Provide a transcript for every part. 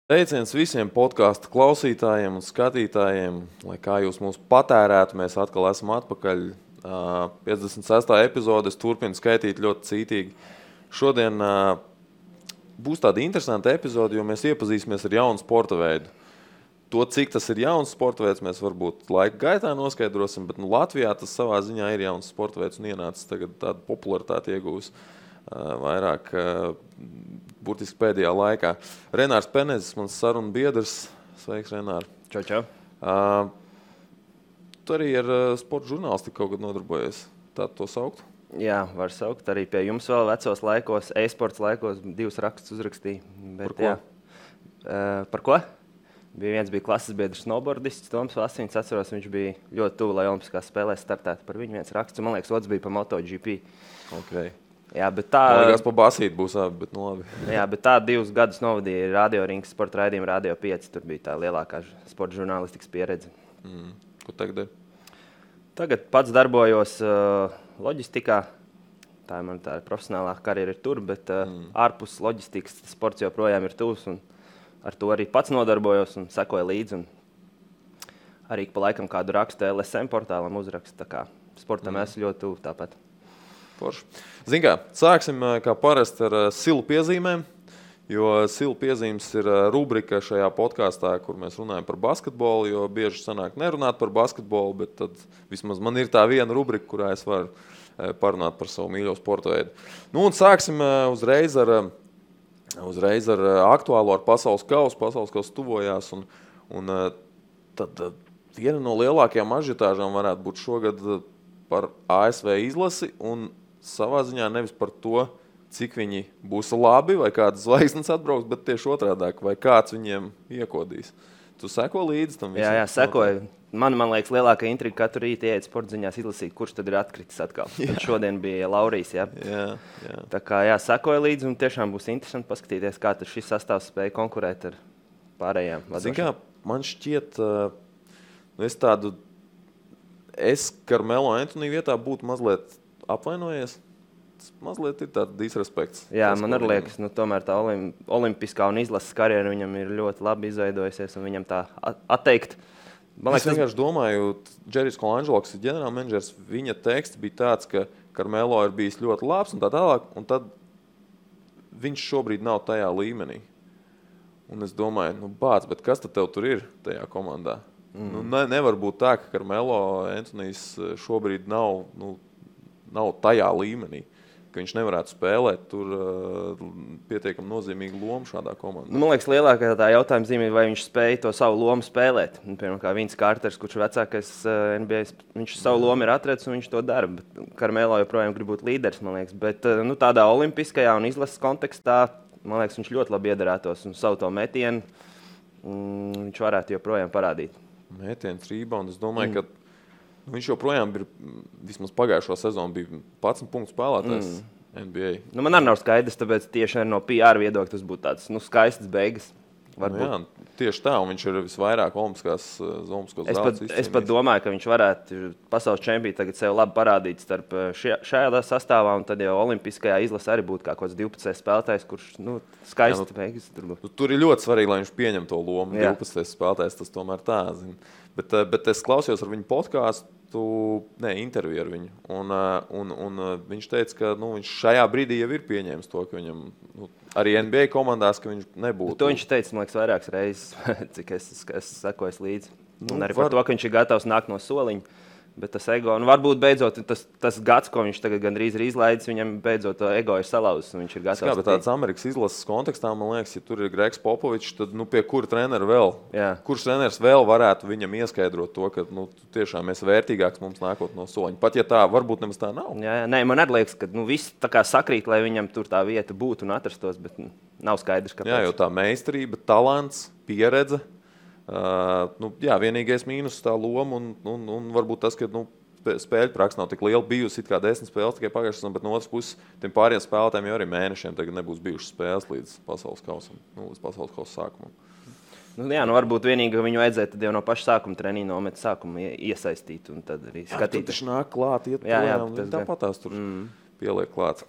Teiciens visiem podkāstu klausītājiem un skatītājiem, lai kā jūs mūs patērētu, mēs atkal esam atpakaļ. 56. epizodes turpina skaitīt ļoti cītīgi. Šodien būs tāda interesanta epizode, jo mēs iepazīsimies ar jaunu sporta veidu. To, cik tas ir jauns sporta veids, mēs varbūt laika gaitā noskaidrosim, bet Latvijā tas savā ziņā ir jauns sporta veids un ienācis tagad tādu popularitāti iegūs vairāk burtiski pēdējā laikā. Renārs Penezis, mans sarunu biedrs. Sveiks, Renār. Čau. Tu arī ar sporta žurnālistiku kaut kad nodarbojies. Tā to saukt? Jā, var saukt. Arī pie jums vēl vecos laikos, e-sports laikos 2 rakstus uzrakstīju. Bet, par ko? Par ko? Viens bija klases biedrs snowboardists, Toms Vasiņš. Atceros, viņš bija ļoti tuvu, lai Olimpiskās spēlēs startētu par viņu viens raksts. Man liekas, otrs bija par MotoGP. Okay. Jā, bet tā... Man liekas, pa basīti būs abi, bet nu labi. Jā, bet tā 2 gadus novadīja Radio Rings sporta raidījumu Radio 5. Tur bija tā lielākā sporta žurnālistikas pieredze. Ko tagad ir? Tagad pats darbojos loģistikā. Tā ir man tā profesionālā karjera ir tur, bet ārpus loģistikas sports joprojām ir tuvs. Ar to arī pats nodarbojos un sekoju līdzi. Arī pa laikam kādu rakstu LSM portālam uzrakstu. Tā kā sportam esmu ļoti tuvu tāpat. Forši. Zin kā, sāksim kā parasti ar silu piezīmēm, jo silu piezīmes ir rubrika šajā podkāstā, kur mēs runājam par basketbolu, jo bieži sanāk nerunāt par basketbolu, bet tad vismaz man ir tā viena rubrika, kurā es varu parunāt par savu mīļo sporta veidu. Nu un sāksim uzreiz ar aktuālo, ar pasaules kausu. Pasaules kausu tuvojās un tad viena no lielākajām ažiotāžām varētu būt šogad par ASV izlasi un savā ziņā nevis par to, cik viņi būs labi vai kādas zvaigznes atbrauks, bet tieši otrādāk, vai kāds viņiem iekodīs. Tu seko līdzi tam visam? Jā, sekoju. Man liekas, lielākā intriga katru rītu ieiet sporta ziņās izlasīt, kurš tad ir atkritis atkal. Tad šodien bija Laurijs, jā. Jā. Tā kā sekoju līdzi un tiešām būs interesanti paskatīties, kā tad šis sastāvs spēja konkurēt ar pārējām vadošām. Zin kā, man šķiet, es Carmelo Anthony vietā būtu mazliet apvainojies. Tas mazliet ir tāds disrespekts. Jā, man arī liekas, tomēr tā olimpiskā un izlases karjera viņam ir ļoti labi izveidojusies un viņam tā atteikt. Es vienkārši domāju, Džerijs Kolangelos, ģenerālmenedžers, viņa teksts bija tāds, ka Carmelo ir bijis ļoti labs un tā tālāk, un tad viņš šobrīd nav tajā līmenī. Un es domāju, bet kas tad tev tur ir tajā komandā? Nevar būt tā, ka Carmelo Anthonijs šobrīd nav tajā līmenī, ka viņš nevarētu spēlēt tur pietiekami nozīmīgu lomu šādā komandā. Man liekas, lielākā tā jautājuma zīme ir, vai viņš spēja to savu lomu spēlēt. Piemēram, kā Vince Carters, kurš vecākais NBA, viņš savu lomu ir atradzis un viņš to dara. Carmelo joprojām grib būt līderis, man liekas. Bet tādā olimpiskajā un izlases kontekstā, man liekas, viņš ļoti labi iedarētos un savu to metienu viņš varētu joprojām parādīt. Mētiens, rebound, es domāju, ka viņš joprojām ir, vismaz pagājušo sezonu, bija 11 punktu spēlētājs NBA. Man arī nav skaidrs, tāpēc tieši no PR viedokļa tas būtu tāds skaistas beigas. Jā, tieši tā, un viņš ir visvairāk olimpiskos zeltus. Es pat domāju, ka viņš varētu pasaules čempionu tagad sev labi parādīt starp šajā sastāvā, un tad jau olimpiskajā izlasē arī būtu kā kāds 12 spēlētājs, kurš skaisti beigas. Tur ir ļoti svarīgi, lai viņš pieņem to lomu. 12 spēlētājs, tas tomēr tā, zin. Bet es klausījos ar viņu podkāstu, interviju ar viņu, un viņš teica, ka viņš šajā brīdī jau ir pieņēmis to, ka viņam arī NBA komandās, ka viņš nebūtu. To viņš teica, man liekas, vairākas reizes, cik es sekoju līdzi. Un arī par to, ka viņš ir gatavs nākt no soliņa. Bet tas ego, varbūt beidzot tas gads, ko viņš tagad gandrīz ir izlaidis, viņam beidzot to ego ir salauzis un viņš ir gatavs. Bet tāds Amerikas izlases kontekstā, man liekas, ja tur ir Gregs Popovičs, tad pie kura trenera vēl? Jā. Kurš treneris vēl varētu viņam ieskaidrot to, ka tiešām esi vērtīgāks mums nākot no soliņa? Pat ja tā, varbūt nemaz tā nav. Jā, man arī liekas, ka viss tā kā sakrīt, lai viņam tur tā vieta būtu un atrastos, bet nav skaidrs, kāpēc. Jā, jo tā meistarība, talants, pieredze. Vienīgais mīnus tā loma un varbūt tas, ka spēļu praksa nav tik liela bijusi, it kā 10 spēles tikai pagājušas, bet no otras puses tiem pāriem spēlētājiem jau arī mēnešiem tagad nebūs bijušas spēles līdz pasaules kausam, līdz pasaules kausa sākumam. Varbūt vienīgi viņu vajadzēja tad jau no paša sākuma treniņu nomet sākumu iesaistīt un tad arī skatīt. Tur taču nāk klāt, iet projām, tāpat tās tur pieliek klāt.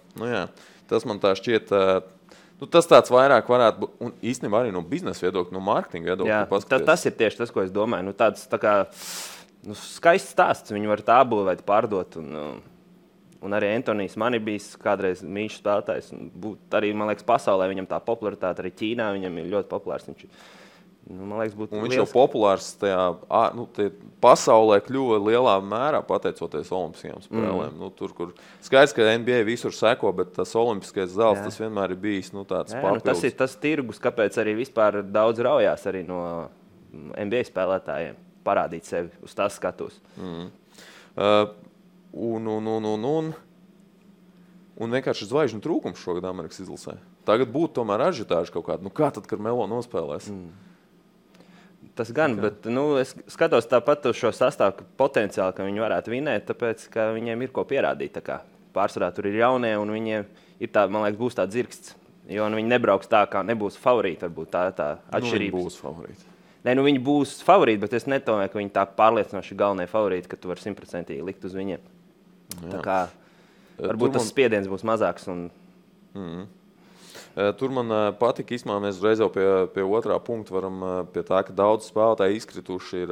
Tas man tā šķiet Nu, tas tāds vairāk varētu būt, un īstenībā arī no biznesa viedokļa, no mārketinga viedokļa. Tas ir tieši tas, ko es domāju. Tāds tā kā skaists stāsts. Viņi var tā būvēt, pārdot. Un arī Antonijs man ir bijis kādreiz mīļš spēlētājs. Arī, man liekas, pasaulē viņam tā popularitāte, arī Ķīnā viņam ir ļoti populārs. Man liekas, viņš jau populārs tajā pasaulē kļuva lielā mērā pateicoties Olimpiskajām spēlēm. Tur, kur skaidrs, ka NBA visur seko, bet tas olimpiskais zelts, tas vienmēr ir bijis tāds papildus. Tas ir tas tirgus, kāpēc arī vispār daudz raujās arī no NBA spēlētājiem parādīt sevi uz tās skatus. Un vienkārši zvaigžņu trūkums šogad Amerikas izlasē. Tagad būtu tomēr ažitāži kaut kāda. Kā tad, kad Melo nospēlēs? Tas gan, bet es skatos tāpat uz šo sastāvu potenciāli, ka viņi varētu vinēt, tāpēc, ka viņiem ir ko pierādīt. Pārsvarā tur ir jaunie, un viņiem ir tā, man liekas, būs tāds dzirksts. Jo viņi nebrauks tā, kā nebūs favorīti. Varbūt tā atšķirība. Viņi būs favorīti. Viņi būs favorīti, bet es nedomāju, ka viņi tā pārliecinoši galvenie favorīti, ka tu vari 100% likt uz viņiem. Tā kā varbūt tas spiediens būs mazāks. Tur man patika, īstenībā mēs reiz jau pie otrā punkta varam pie tā, ka daudz spēlētāji izkrituši ir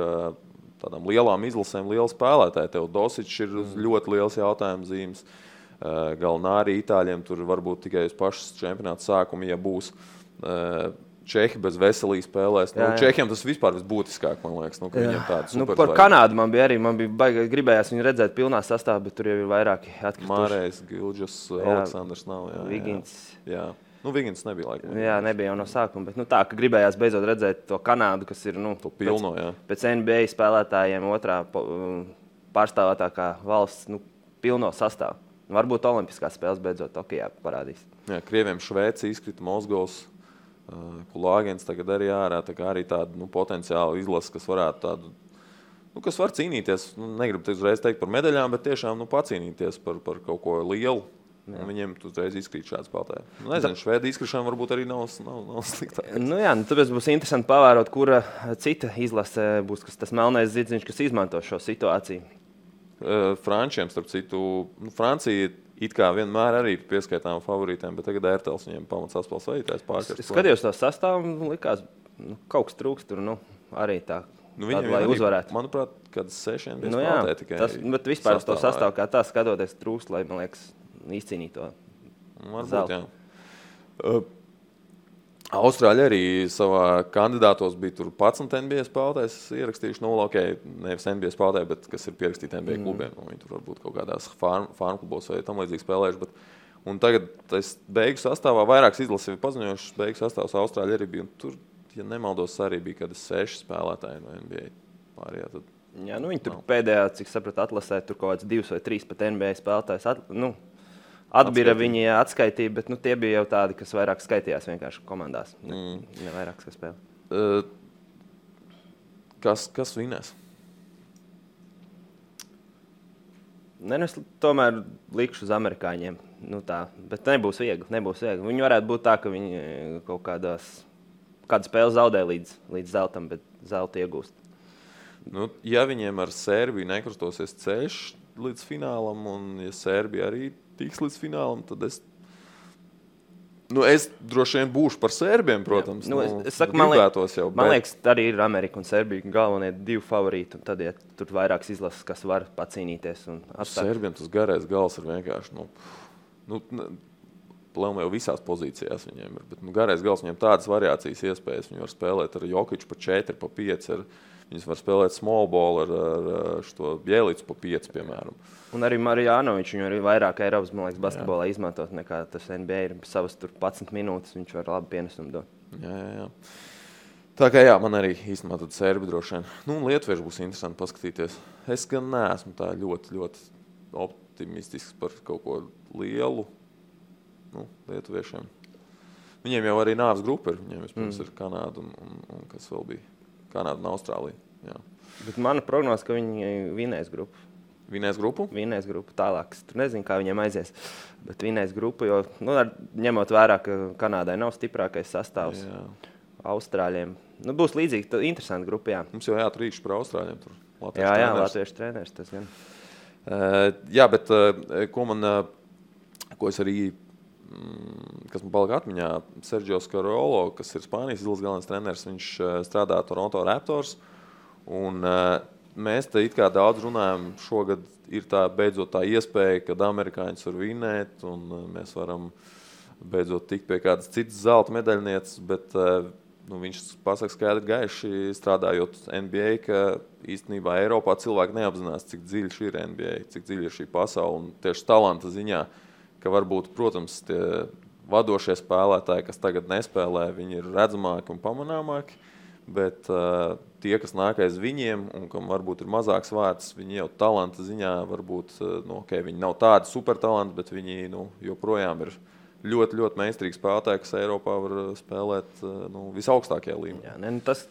tādām lielām izlasēm, liela spēlētāji. Tev Dosičs ir ļoti liels jautājums zīmes. Galnāri Itāļiem tur varbūt tikai uz pašas čempionāta sākumu, ja būs. Čehi bez veselības spēlēs. Čehiem tas vispār visbūtiskāk, man liekas. Viņiem tāds par Kanādu man bija gribējās viņu redzēt pilnā sastāvā, bet tur jau ir vairāki atkrituši. Mārējs, Gilģis, Aleksandrs nav. Vigins. Vigins nebija laikam. Jā, nebija jau no sākuma, bet tā, ka gribējās beidzot redzēt to Kanādu, kas ir pilno, pēc NBA spēlētājiem otrā pārstāvētākā valsts pilno sastāvu. Varbūt olimpiskās spēles beidzot Tokijā parādīs. Jā, Krieviem Šveici izkrita Mozgovs. Kulāgens tagad arī ārā, tā kā arī tāda potenciāla izlase, kas varētu tādu, kas var cīnīties, negribu uzreiz teikt par medaļām, bet tiešām pacīnīties par kaut ko lielu. Viņiem uzreiz izkrīt šāds spēlētāji. Nezinu, Švēdi izkrišana varbūt arī nav sliktāk. Tāpēc būs interesanti pavērot, kura cita izlase būs tas melnais zirdziņš, kas izmanto šo situāciju. Frančiem, starp citu, Francija it kā vienmēr arī pieskaitām favorītiem, bet tagad Ērtels viņiem pamats atspēles vadītājs pārkārt. Es skatījos to sastāvu, likās, kaut kas trūkst tur, arī tā, lai uzvarētu. Manuprāt, kāds 6 bija spēlētāji tikai. Bet vispār to sastāvu kā tā skatoties trūkst, lai, man liekas, izcīnīt to zeltu. Austrāļi arī savā kandidātos bija tur 11 NBA spēlētājs ierakstījuši, nevis NBA spēlētāji, bet kas ir pierakstīti NBA klubiem. Viņi tur varbūt kaut kādās farm klubos vai tam līdzīgi spēlējuši. Un tagad tas beigu sastāvā vairākas izlases ir paziņojušas, beigu sastāvs Austrāļi arī bija. Un tur, ja nemaldos, arī bija kādi 6 spēlētāji no NBA pārējā. Viņi tur pēdējā, cik sapratu, atlasē tur kaut kāds 2 vai 3 pat NBA spēlētājs. Atbira viņi atskaitīja, bet tie bija jau tādi, kas vairāk skaitījās vienkārši komandās. Ne vairāk, kas spēlē. Kas vinēs? Es tomēr likšu uz amerikāņiem. Bet nebūs viegli. Viņi varētu būt tā, ka viņi kaut kādu spēli zaudē līdz zeltam, bet zeltu iegūst. Ja viņiem ar Sērbiju nekrustosies ceļš līdz finālam, un ja Sērbija arī tiks līdz finālam, tad es droši vien būšu par Sērbiem, protams. Es saku, man liekas, arī ir Amerika un Sērbija galvenie 2 favorīti, un tad, ja tur vairākas izlases, kas var pacīnīties un atstāt. Sērbiem tas garais gals ir vienkārši, plēm jau visās pozīcijās viņiem ir, bet garais gals viņiem tādas variācijas iespējas, viņi var spēlēt ar Jokiču pa 4, pa 5, viņas var spēlēt small ball ar šo Bjelicu pa 5, piemēram. Un arī Marjanovičs viņu arī vairāk Eiropas, man liekas, basketbolā izmantot nekā tas NBA ir savas tur 11 minūtes, viņš var labi pienesumu dot. Jā. Tā kā man arī īstenībā tad Sērbi droši vien. Lietuvieši būs interesanti paskatīties. Es gan neesmu tā ļoti, ļoti optimistisks par kaut ko lielu lietuviešiem. Viņiem jau arī nāves grupa ir. Viņiem vispirms ir Kanāda un kas vēl bija? Kanāda un Austrālija. Jā. Bet mana prognoze, ka viņi vinēs grupu. Vinēs grupu? Vinēs grupu tālāk. Tur nezinu, kā viņiem aizies. Bet vinēs grupu, jo ņemot vērā, ka Kanādai nav stiprākais sastāvs. Jā. Austrāļiem. Būs līdzīgi, interesanti grupa, jā. Mums jau jāatrīkš par Austrāļiem tur. Jā, latviešu treneris tas gan. Jā, bet ko es arī kas man palika atmiņā, Sergio Scariolo, kas ir Spānijas izlases galvenais treneris, viņš strādā Toronto Raptors. Un mēs te it kā daudz runājam, šogad ir tā beidzot tā iespēja, kad amerikāņus var vinēt, un mēs varam beidzot tikt pie kādas citas zelta medaļnieces, bet viņš pasaka skaidri gaiši, strādājot NBA, ka īstenībā Eiropā cilvēki neapzinās, cik dziļš ir NBA, cik dziļi ir šī pasaule, un tieši talanta ziņā, ka varbūt, protams, tie vadošie spēlētāji, kas tagad nespēlē, viņi ir redzamāki un pamanāmāki, bet tie, kas nāk aiz viņiem un kam varbūt ir mazāks vārds, viņi jau talanta ziņā varbūt, viņi nav tādi supertalanti, bet viņi joprojām ir ļoti, ļoti meistarīgi spēlētāji, kas Eiropā var spēlēt visaugstākajā līmenī. Jā,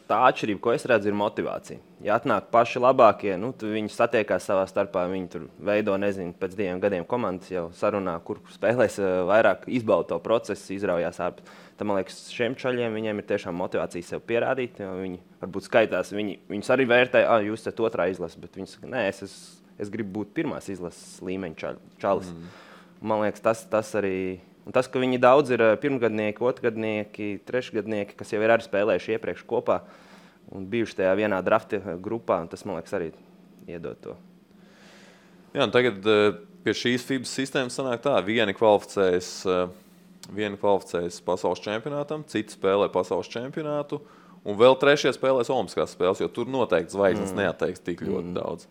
tā atšķirība, ko es redzu, ir motivācija. Ja atnāk paši labākie, viņi satiekās savā starpā, viņi tur veido, pēc 2 gadiem komandas jau sarunā, kur spēlēs vairāk, izbauda to procesu, izraujās ārpus. Tad, man liekas, šiem čaļiem viņiem ir tiešām motivācija sev pierādīt. Viņi varbūt skaitās, viņus arī vērtē, jūs esat otrā izlase, bet viņi saka, nē, es gribu būt pirmās izlases līmeņa čalis. Man liekas, tas arī... Un tas, ka viņi daudz ir pirmgadnieki, otrgadnieki, trešgadnieki, kas jau ir arī spēlējuši iepriekš kopā un bijuši tajā vienā drafta grupā, un tas, man liekas, arī iedod to. Jā, un tagad pie šīs FIBA sistēmas sanāk tā, vieni kvalificējas pasaules čempionātam, citi spēlē pasaules čempionātu, un vēl trešie spēlēs olimpiskās spēles, jo tur noteikti zvaigznes neatteiks tik ļoti daudz.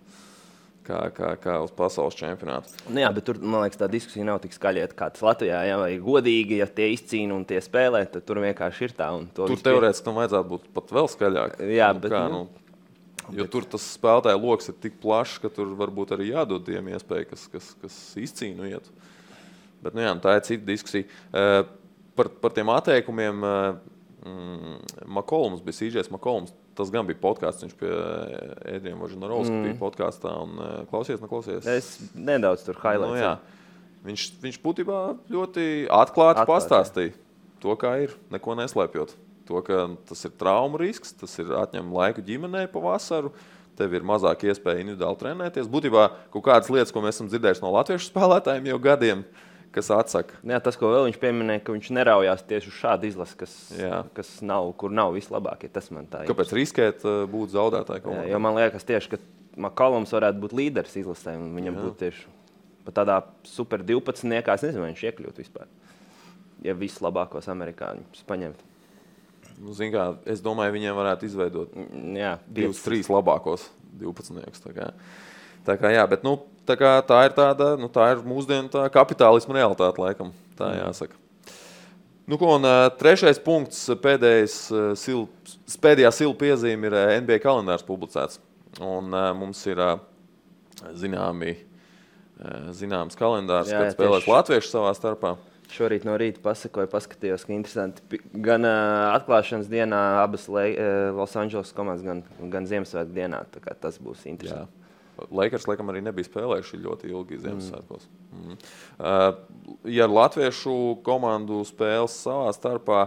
Kā uz pasaules čempionātu. Jā, bet tur, man liekas, tā diskusija nav tik skaļieta kā tas Latvijā. Ja, vai godīgi, ja tie izcīna un tie spēlē, tad tur vienkārši ir tā. Tur teorētiski tam vajadzētu būt pat vēl skaļāk. Jā, bet... Jo tur tas spēlētāju loks ir tik plašs, ka tur varbūt arī jādod tiem iespēju, kas izcīnu ietu. Bet, tā ir cita diskusija. Par tiem atteikumiem McCollums bija CJs McCollums. Tas gan bija podkāsts, viņš pie Ēdriem Vožinarovska bija podkāstā un klausies. Es nedaudz tur highlights. Viņš būtībā ļoti atklāti pastāstīja to, kā ir, neko neslēpjot. To, ka tas ir traumu risks, tas ir atņem laiku ģimenei pa vasaru, tev ir mazāk iespēja individuāli trenēties. Būtībā kaut kādas lietas, ko mēs esam dzirdējuši no latviešu spēlētājiem jau gadiem, kas atsaka. Jā, tas, ko vēl viņš pieminēja, ka viņš neraujās tieši uz šādu izlasi, kur nav vislabākie. Tas man tā ir. Kāpēc riskēt būt zaudētāji komandā? Jo man liekas tieši, ka McCollums varētu būt līderis izlasē, un viņam būtu tieši pat tādā super 12-niekā, es nezinu, vai viņš iekļūt vispār, ja vislabākos amerikāņus paņemt. Es domāju, viņiem varētu izveidot 2-3 labākos 12-niekus. Tā kā jā, bet tā ir tāda, tā ir mūsdienu tā kapitālisma realitāte, laikam, tā jāsaka. Un trešais punkts, pēdējā silu piezīme ir NBA kalendārs publicēts. Un mums ir zināms kalendārs, kad spēlēs latvieši savā starpā. Šorīt no rīta paskatījos, ka interesanti. Gan atklāšanas dienā abas Los Angeles komandas, gan Ziemassvētku dienā. Tā kā tas būs interesanti. Jā. Lakers, laikam, arī nebija spēlējuši ļoti ilgi Ziemassvētkos. Ja latviešu komandu spēles savā starpā,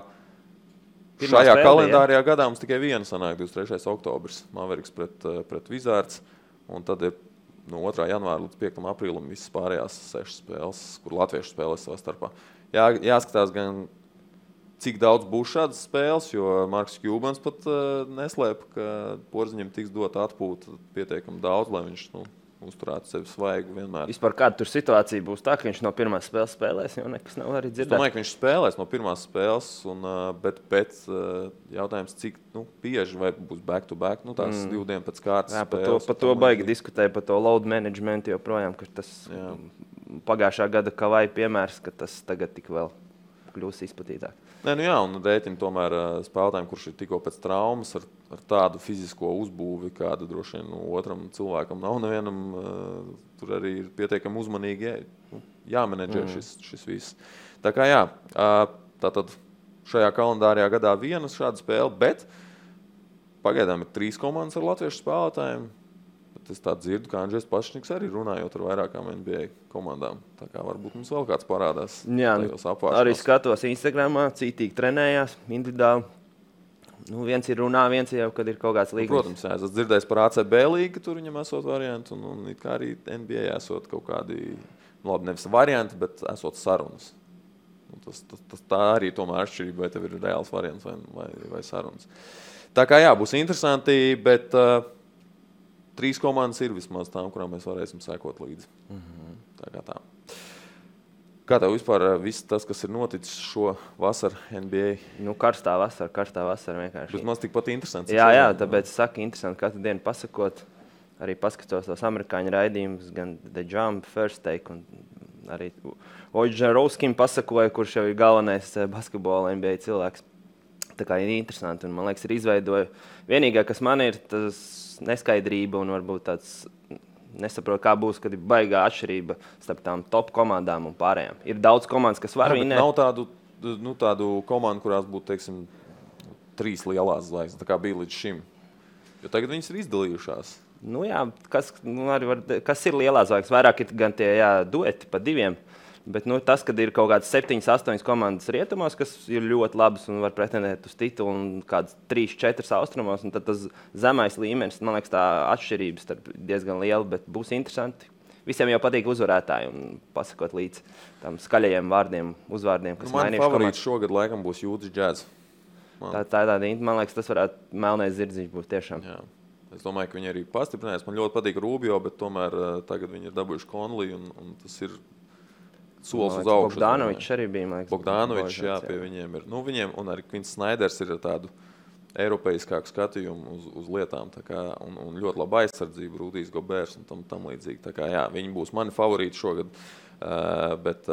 šajā kalendārajā gadā mums tikai viena sanāk 23. oktobris, Mavericks pret Wizards, un tad ir no 2. janvāra līdz 5. aprīlim visas pārējās 6 spēles, kur latviešu spēlēs savā starpā. Jāskatās gan, cik daudz būs šādas spēles, jo Marks Kjūbans pat neslēpa, ka Porziņam tiks dot atpūta pietiekami daudz, lai viņš uzturētu sevi svaigu vienmēr. Vispār kāda tur situācija būs tā, ka viņš no pirmās spēles spēlēs, jo nekas nav arī dzirdēt? Es domāju, ka viņš spēlēs no pirmās spēles, bet jautājums, cik bieži vai būs back-to-back, tās 2 dienu pēc kārtas spēles. Par to baigi diskutēja, par to load management joprojām, ka tas pagājušā gada Kavai piemērs, ka tas tagad tik vēl kļūs izplatītāk. Un rēķina tomēr spēlētājiem, kurš ir tikko pēc traumas ar tādu fizisko uzbūvi, kāda droši vien otram cilvēkam nav nevienam, tur arī ir pietiekami uzmanīgi jāmenedžē šis viss. Tā kā tātad šajā kalendārajā gadā viena šāda spēle, bet pagaidām ir 3 komandas ar latviešu spēlētājiem. Es tā dzirdu, ka Andžejs Pašniks arī runājot ar vairākām NBA komandām. Tā kā varbūt mums vēl kāds parādās tajos apvāršanās. Arī skatos Instagramā, cītīgi trenējās, individuāli. Viens ir runā, viens jau, kad ir kaut kāds līgums. Protams, es dzirdēju par ACB līgu, tur viņam esot varianti, un it kā arī NBA esot kaut kādi, nevis varianti, bet esot sarunas. Tā arī tomēr atšķirība, vai tev ir reāls variants vai sarunas. Tā kā jā, būs interesanti, bet 3 komandas ir vismaz tām, kurām mēs varēsim sekot līdzi. Tā kā tā. Kā tev vispār viss tas, kas ir noticis šo vasaru NBA? Karstā vasara vienkārši. Vismaz tikpat interesants. Jā, tāpēc saku interesanti katru dienu pasakot. Arī paskatos tos amerikāņu raidījumus, gan The Jump, First Take, un arī Oģerovskim pasakoja, kurš jau ir galvenais basketbola NBA cilvēks. Tā kā ir interesanti, un man liekas, ir izveidoja. Vienīgā, kas man ir, tas neskaidrība un varbūt tāds nesaprot, kā būs, kad ir baigā atšķirība starp tām top komandām un pārējām. Ir daudz komandas, kas var vinēt. Nav tādu komandu, kurās būtu, teiksim, 3 lielās zvaigznes, tā kā bija līdz šim. Jo tagad viņas ir izdalījušās. Kas ir lielās zvaigznes? Vairāk ir gan tie dueti pa 2. Bet tas, kad ir kaut kādas 7, 8 komandas rietumos, kas ir ļoti labas un var pretendēt uz titulu, un kādas 3, 4 austrumos, un tad tas zemais līmenis, man liekas, tā atšķirības diezgan liela, bet būs interesanti. Visiem jau patīk uzvarētāji un pasakot līdz tam skaļajiem uzvārdiem, kas mainījuši. Man favorīts šogad laikam būs Utah Jazz. Man liekas, tas varētu melnais zirdziņš būt tiešām. Jā. Es domāju, ka viņi arī pastiprinās. Man ļoti patīk Rubio, bet tomēr tagad viņi ir dabūjuši Conley, un tas ir solis uz augšu. Bogdanovičs arī bija, man liekas. Bogdanovičs, jā, pie viņiem ir. Viņiem, un arī Quins Sneiders ir tādu eiropeiskāku skatījumu uz lietām, tā kā, un ļoti laba aizsardzība, Rudijs Gobērs un tam līdzīgi. Tā kā, jā, viņi būs mani favorīti šogad, bet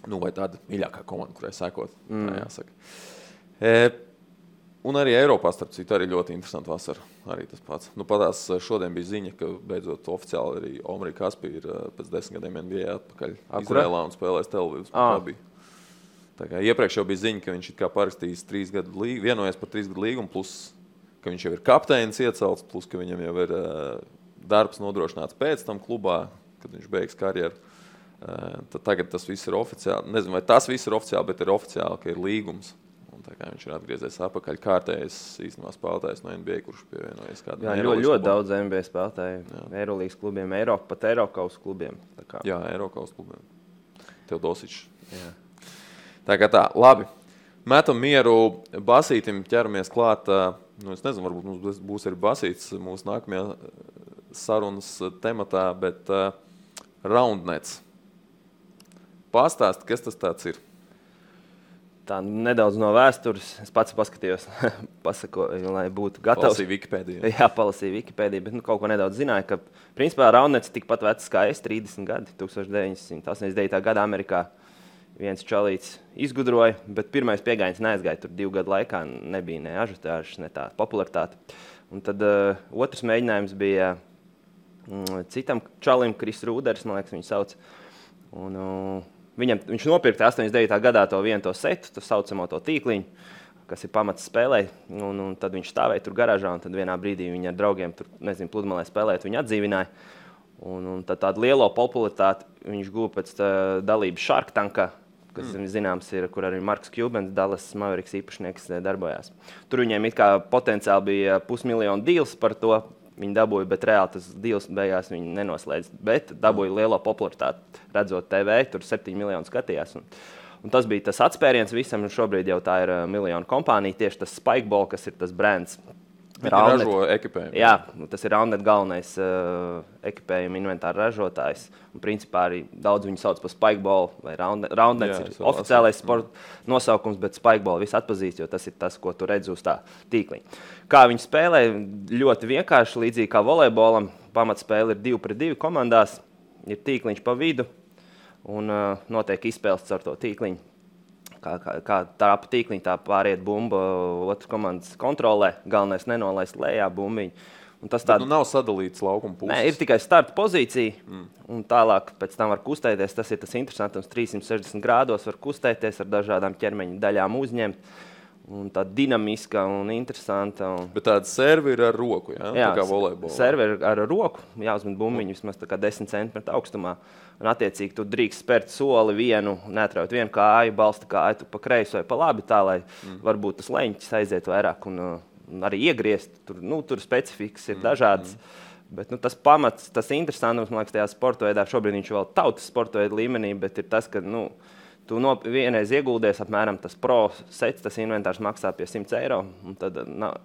vai tāda mīļākā komanda, kurai sekot, tā jāsaka. Un arī Eiropā, starp citu, arī ļoti interesanti vasara. Arī tas pats. Patās šodien bija ziņa, ka beidzot oficiāli arī Omri Kaspi ir pēc 10 gadiem NBA atpakaļ Izrēlā un spēlēs Tel-Avivas Maccabi. Tā kā iepriekš jau bija ziņa, ka viņš it kā parakstījis 3 gadu līgumu, vienojies par 3 gadu līgumu, plus, ka viņš jau ir kapteinis iecelts, plus, ka viņam jau ir darbs nodrošināts pēc tam klubā, kad viņš beigs karjeru. Tad tagad tas viss ir oficiāli. Nezinu, vai tas viss ir oficiāli, bet ir oficiāli, ka ir līgums. Tā kā viņš ir atgriezies apakaļ kārtējais īstenībā spēlētājs no NBA, kurš pievienojies kādam. Jā, ļoti daudz NBA spēlētāju. Eirolīgas klubiem, pat Eirokaus klubiem. Jā, Eirokaus klubiem. Teodosičs. Tā kā tā, labi. Metam mieru basītim, ķeramies klāt. Es nezinu, varbūt mums būs arī basīts mūsu nākamajā sarunas tematā, bet Roundnets. Pastāst, kas tas tāds ir? Tā nedaudz no vēstures. Es pats paskatījos, pasakoju, lai būtu gatavs. Palasīju Wikipēdiju. Jā, palasīju Wikipēdiju, bet kaut ko nedaudz zināju, ka principā Roundnets tikpat vecs kā es, 30 gadi, 1989. Gadā Amerikā viens čalīts izgudroja, bet pirmais piegājiens neaizgāja. Tur 2 gadu laikā nebija ne ažiotāžas, ne tā popularitāte. Un tad otrs mēģinājums bija citam čalim, Kris Rūders, man liekas, viņu sauc. Viņš nopirka 89. gadā to setu, to saucamo to tīkliņu, kas ir pamats spēlē. Un tad viņš stāvēja tur garāžā, un tad vienā brīdī viņi ar draugiem tur, pludmalē spēlēt, viņu atdzīvināja. Un tad tādu lielo popularitāti viņš guva pēc dalības Shark Tankā, kas zināms ir, kur arī Marks Cubans, Dallas Mavericks īpašnieks, darbojās. Tur viņiem it kā potenciāli bija $500 000 deals par to. Viņi dabūja, bet reāli tas deals beigās viņi nenoslēdz. Bet dabūja lielo popularitāti, redzot TV, tur 7 miljoni skatījās. Un tas bija tas atspēriens visam, un šobrīd jau tā ir miljonu kompānija, tieši tas Spikeball, kas ir tas brands. Ražo ekipējumu. Jā, tas ir Roundnet galvenais ekipējuma inventāra ražotājs. Un principā arī daudz viņu sauc par Spikeball, vai Roundnets ir oficiālais sporta nosaukums, bet Spikeball viss atpazīst, jo tas ir tas, ko tu redzi uz tā tīkliņa. Kā viņi spēlē, ļoti vienkārši, līdzīgi kā volejbolam, pamatspēle ir 2 pret 2 komandās, ir tīkliņš pa vidu un notiek izspēles caur to tīkliņu. Kā tā pa tīkliņu, tā pāriet bumba, otras komandas kontrolē, galvenais nenolaist lejā bumbiņu. Un tas nav sadalīts laukuma puses. Nē, ir tikai starta pozīcija, un tālāk pēc tam var kustēties. Tas ir tas interesantums, 360 grādos var kustēties, ar dažādām ķermeņa daļām uzņemt. Un tā dinamiska un interesanta. Bet tāda serve ir ar roku, jā? Jā, tā kā volejbolā. Serve ir ar roku, jāuzmet bumbiņu vismaz tā kā 10 centimetru augstumā. Un attiecīgi tu drīkst spērt soli vienu, neatraut vienu kāju, balsta kāju tu pa kreisi vai pa labi, tā lai varbūt tas leņķis aiziet vairāk un arī iegriezt. Tur specifikas ir dažādas. Bet tas pamats, tas interesantums, man liekas, tajā sporta veidā, šobrīd viņš vēl tautas sporta veidā līmenī, bet ir tas, ka tu vienreiz ieguldies apmēram tas pro sets, tas inventārs maksā pie 100 eiro, un tad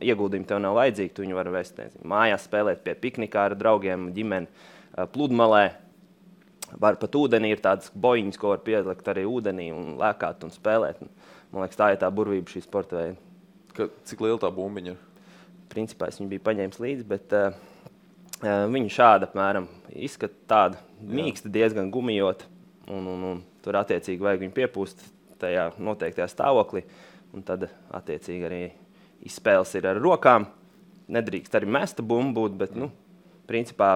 ieguldījumi tev nav vajadzīgi, tu viņu vari vest, nezinu, mājās spēlēt pie piknikā ar draugiem, ģimeni, pludmalē. Var pat ūdenī ir tādas bojiņas, ko var pielikt arī ūdenī un lēkāt un spēlēt. Man liekas, tā ir tā burvība šī sporta veida. Cik liela tā bumbiņa ir? Principā es viņu biju paņēmis līdzi, bet viņa šāda apmēram izskata tāda mīksta, diezgan gumijota. Un tur attiecīgi vajag viņu piepūst tajā noteiktajā stāvoklī. Un tad attiecīgi arī izspēles ir ar rokām. Nedrīkst arī mesta bumbu būt, bet, principā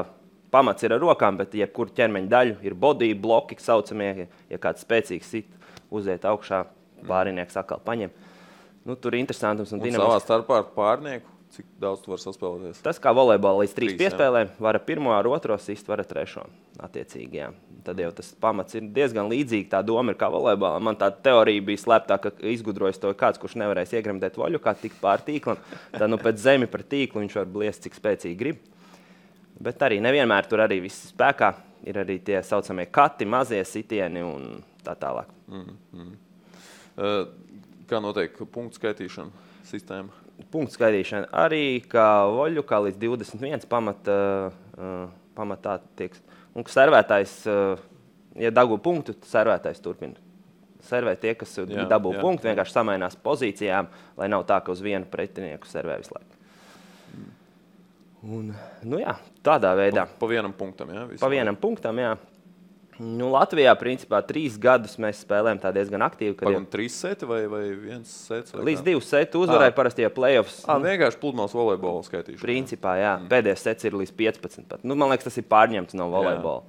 pamats ir ar rokām, bet jebkur ķermeņa daļu ir body bloki, saucamie, ja kāds spēcīgs sit, uziet augšā, pārinieks atkal paņem. Tur ir interesantums un dinamisks. Un savā starpā ar pārnieku, cik daudz tu var saspēlēties? Tas kā volejbolā līdz 3 piespēlēm, var ar 1, ar 2 sist, var ar 3. Attiecīgi, jā. Tad jau tas pamats ir diezgan līdzīgi, tā doma ir kā volejbolā. Man tā teorija bija slēptā, ka izgudrojas to kāds, kurš nevarēs iegremdēt voļu, kā tik pār tīklam. Tad pēc zemi par tīklu viņš var bliest, cik spēcīgi grib. Bet arī nevienmēr tur arī viss spēkā. Ir arī tie saucamie kati, mazie sitieni un tā tālāk. Kā notiek punktu skaitīšana sistēma? Punktu skaitīšana arī kā voļu, kā līdz 21 pamatā tiek. Un servētājs, ja dabū punktu, tad servētājs turpina. Servē tie, kas dabū punktu, vienkārši samainās pozīcijām, lai nav tā, ka uz vienu pretinieku servē visu laiku. Un, tādā veidā. Pa vienam punktam, jā? Pa vienam punktam, jā. Latvijā, principā, 3 gadus mēs spēlējam tā diezgan aktīvi. Pagam 3 seti vai 1 sets? Līdz 2 seti uzvarēja parasti, ja playoffs. Vienkārši pludmales volejbola skaitīšana. Principā, jā. Pēdējais sets ir līdz 15 pat. Man liekas, tas ir pārņemts no volejbola.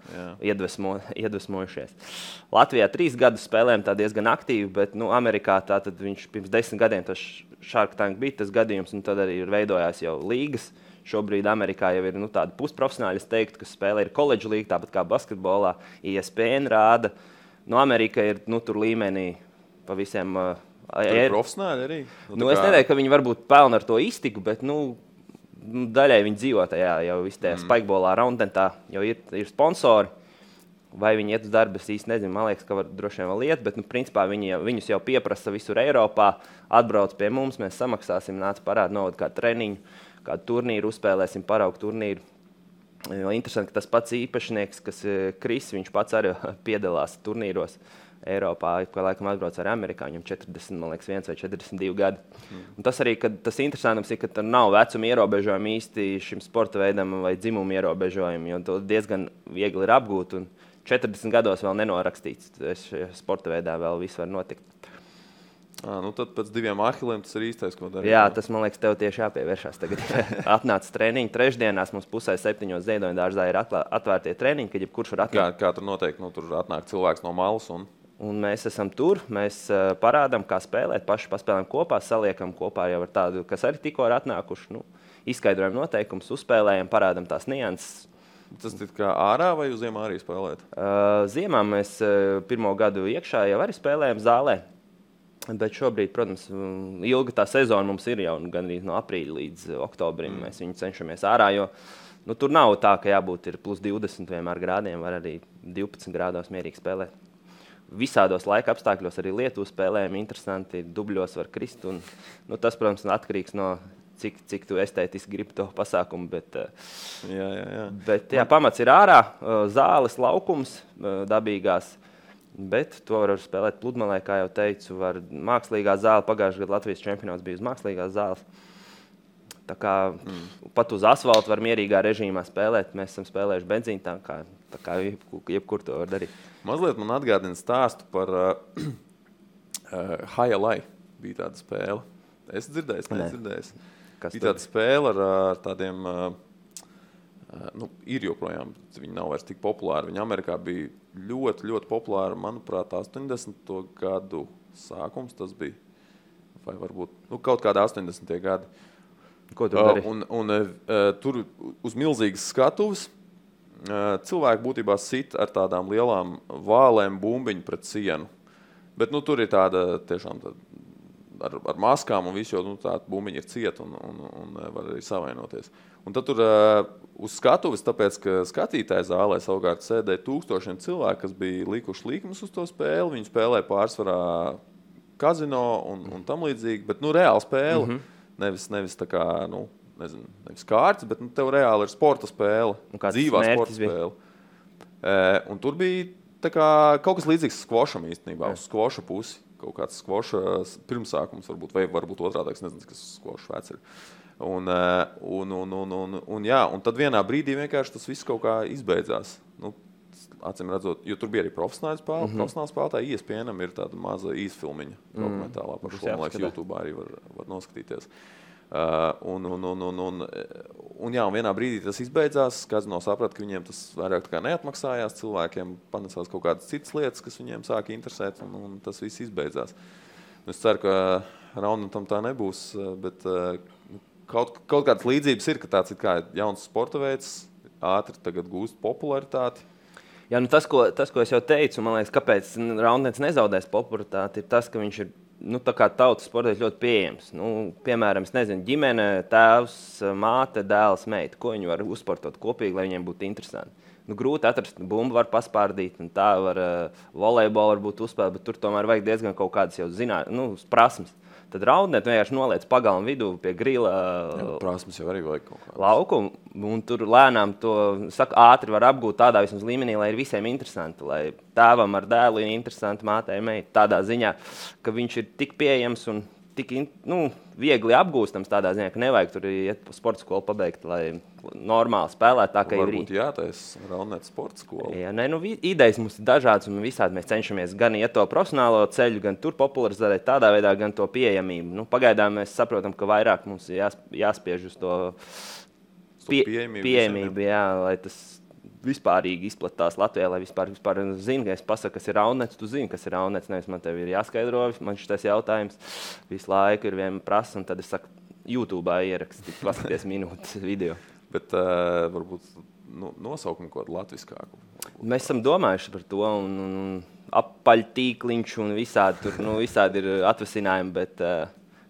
Iedvesmojušies. Latvijā 3 gadus spēlējam tā diezgan aktīvi, bet Amerikā tātad viņš pirms 10 gadiem tas Shark Tank bija tas gadījums, un tad arī ir veidojās jau līgas. Šobrīd Amerikā jau ir tādi pusprofesionāļi, es teiktu, kas spēlē ir koledžu līga, tāpat kā basketbolā. ESPN rāda. Amerika ir tur līmenī pa visiem. Tur ir profesionāļi arī? Es nedomāju, ka viņi varbūt pelna ar to iztiku, bet daļai viņi dzīvo tajā jau tajā spikebolā, roundentā, jau ir sponsori. Vai viņi iet uz darbu, es īsti nezinu. Man liekas, ka var droši vien vēl iet, bet principā viņus jau pieprasa visur Eiropā. Atbrauc pie mums, mēs samaksāsim, nāc parāda novada kādu treniņu. Kādu turnīru uzspēlēsim, paraugu turnīru. Interesanti, ka tas pats īpašnieks, kas Kris, viņš pats arī piedalās turnīros Eiropā, ka laikam atbrauc ar Amerikā, viņam 40, man liekas, 1 vai 42 gadi. Un tas arī, ka tas interesantums ir, ka tur nav vecuma ierobežojumi īsti šim sporta veidam vai dzimumu ierobežojumi, jo to diezgan viegli ir apgūt, un 40 gados vēl nenorakstīts. Sporta veidā vēl viss var notikt. Tad pēc 2 ahiliem tas ir īstais, ko darīt. Jā, tas, man liekas, tev tieši jāpievēršās tagad. Atnāca treniņi. Trešdienās mums 6:30 Ziedoņa dārzā ir atvērtie treniņi, kad jebkurš var atnākt. Kā tur notiek? Tur atnāk cilvēks no malas un mēs esam tur, mēs parādām, kā spēlēt, paši paspēlējam kopā, saliekam kopā jau ar tādu, kas arī tikko ir atnākuši. Izskaidrojam noteikumus, uzspēlējam, parādām tās nianses. Tas ir kā ārā vai uz ziemā arī spēlēt? Ziemā mēs 1. gadu iekšā jau arī spēlējam zālē. Bet šobrīd, protams, ilga tā sezona mums ir jau gandrīz no aprīļa līdz oktobrim. Mēs viņu cenšamies ārā, jo tur nav tā, ka jābūt ir plus 20 vienmēr grādiem, var arī 12 grādos mierīgi spēlēt. Visādos laika apstākļos arī Lietuvu spēlējam, interesanti, dubļos var krist. Un, tas, protams, atkarīgs no cik tu estētiski gribi to pasākumu. Bet pamats ir ārā, zāles, laukums, dabīgās. Bet to var spēlēt pludmalē, kā jau teicu, var mākslīgā zāle. Pagājušajā gadā Latvijas čempionāts bija uz mākslīgās zāles. Tā kā pat uz asfalta var mierīgā režīmā spēlēt. Mēs esam spēlējuši benzīnu, tā kā jebkur to var darīt. Mazliet man atgādina stāstu par Highlight. Bija tāda spēle. Es dzirdēju. Bija tāda spēle ar tādiem... ir joprojām, viņi nav vairs tik populāri. Viņi Amerikā bija ļoti, ļoti populāri. Manuprāt, 80. gadu sākums tas bija. Vai varbūt kaut kādā 80. gadi. Ko tu dari? Tur uz milzīgas skatuves cilvēki būtībā sit ar tādām lielām vālēm bumbiņu pret sienu. Bet tur ir tāda tiešām ar maskām un visu, jo tā bumbiņa ir cieta un var arī savainoties. Un tad tur uz skatuves, tāpēc, ka skatītāju zālē savukārt sēdēja tūkstošiem cilvēku, kas bija likuši līkumus uz to spēli. Viņi spēlēja pārsvarā kazino un tam līdzīgi, bet reāli spēle. Nevis tā kā, nevis kārtas, bet tev reāli ir sporta spēle, dzīvā sporta spēle. Un tur bija tā kā kaut kas līdzīgs skvošam īstenībā, uz skvoša pusi. Kaut kāds skvoša pirmsākums varbūt, vai varbūt otrādāks, nezinu, kas skvoša vecs ir. Un tad vienā brīdī vienkārši tas viss kaut kā izbeidzās. Acīm redzot, jo tur bija arī profesionāli spēlētāji, ESPN-am ir tāda maza īsfilmiņa dokumentālā par šo, man liekas, YouTube arī var noskatīties. Un vienā brīdī tas izbeidzās, kazino saprata, ka viņiem tas vairāk tā kā neatmaksājās, cilvēkiem panesās kaut kādas citas lietas, kas viņiem sāka interesēt, un tas viss izbeidzās. Es ceru, ka Raunnetam tā nebūs, bet kaut kādas līdzības ir, ka tāds ir kā jauns sporta veids, ātri tagad gūst popularitāti. Jā, tas, ko es jau teicu, man liekas, kāpēc Raunnets nezaudēs popularitāti, ir tas, ka viņš ir tā kā tautas sports ļoti pieejams. Piemēram, es nezinu, ģimene, tēvs, māte, dēls, meita. Ko viņi var uzsportot kopīgi, lai viņiem būtu interesanti? Grūti atrast, bumbu var paspārdīt, un tā var volejbolu varbūt uzspēlēt, bet tur tomēr vajag diezgan kaut kādas jau prasmes. Tad Raunnet vienkārši noliec pagalmu vidū pie grila prasmes jau arī vajag kaut kādas. Lauku, un tur lēnām to ātri var apgūt tādā vismaz līmenī, lai ir visiem interesanti, lai tēvam ar dēlu ir interesanti, mātei meitai, tādā ziņā, ka viņš ir tik pieejams un tik viegli apgūstams tādā ziņā, ka nevajag tur iet pa sporta skolu pabeigt, lai normāli spēlēt tā, ka ir. Varbūt jātaisa Raunnet sporta skola. Jā, idejas mums ir dažādas un visādi mēs cenšamies gan iet to profesionālo ceļu, gan tur popularizēt tādā veidā, gan to pieejamību. Pagaidām mēs saprotam, ka vairāk mums ir jāspiež uz to pieejamību, jā, lai tas vispārīgi izplatās Latvijā, lai vispār zina, ka es pasaku, kas ir Raunnets, tu zini, kas ir Raunnets, nevis man tev ir jāskaidro, man šis jautājums visu laiku ir vien prasa, un tad es saku, YouTube'ā ierakstīt, paskaties minūtes video. Bet varbūt nosaukumu kaut kādu latviskāku. Mēs esam domājuši par to, un apaļtīkliņš, un visādi ir atvasinājumi, bet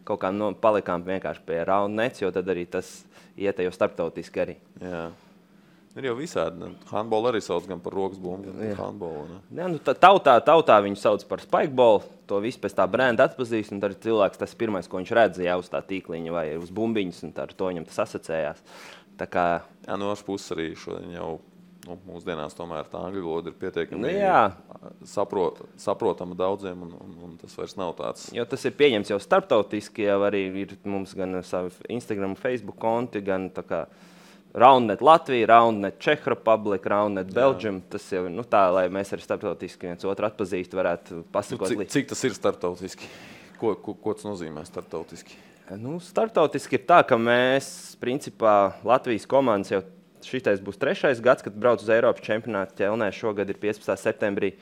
kaut kā palikām vienkārši pie Raunnets, jo tad arī tas iet jau starptautiski arī. Jā. Ir jau visādi. Handbolu arī sauc gan par rokas bumbu, gan par handbolu. Jā, tautā viņu sauc par spikebolu. To visu pēc tā brenda atpazīst, un tad cilvēks tas pirmais, ko viņš redz, jau uz tā tīkliņa vai uz bumbiņas, un ar to viņam tas asociējās. Tā kā... Jā, no otras puses arī šodien jau mūsdienās tomēr tā angļu valoda ir pietiekami saprotama daudziem, un tas vairs nav tāds. Jo tas ir pieņemts jau starptautiski, jau arī ir mums gan savi Instagram, Facebook konti, gan tā kā Raunnet Latvija, Raunnet Czech Republic, Raunnet Belgium. Tas jau tā, lai mēs arī starptautiski viens otru atpazīstu, varētu pasakot. Cik tas ir starptautiski? Ko tas nozīmē starptautiski? Starptautiski ir tā, ka mēs, principā, Latvijas komandas jau šitais būs 3. gads, kad brauc uz Eiropas čempionātu Ķelnē. Šogad ir 15. septembrī.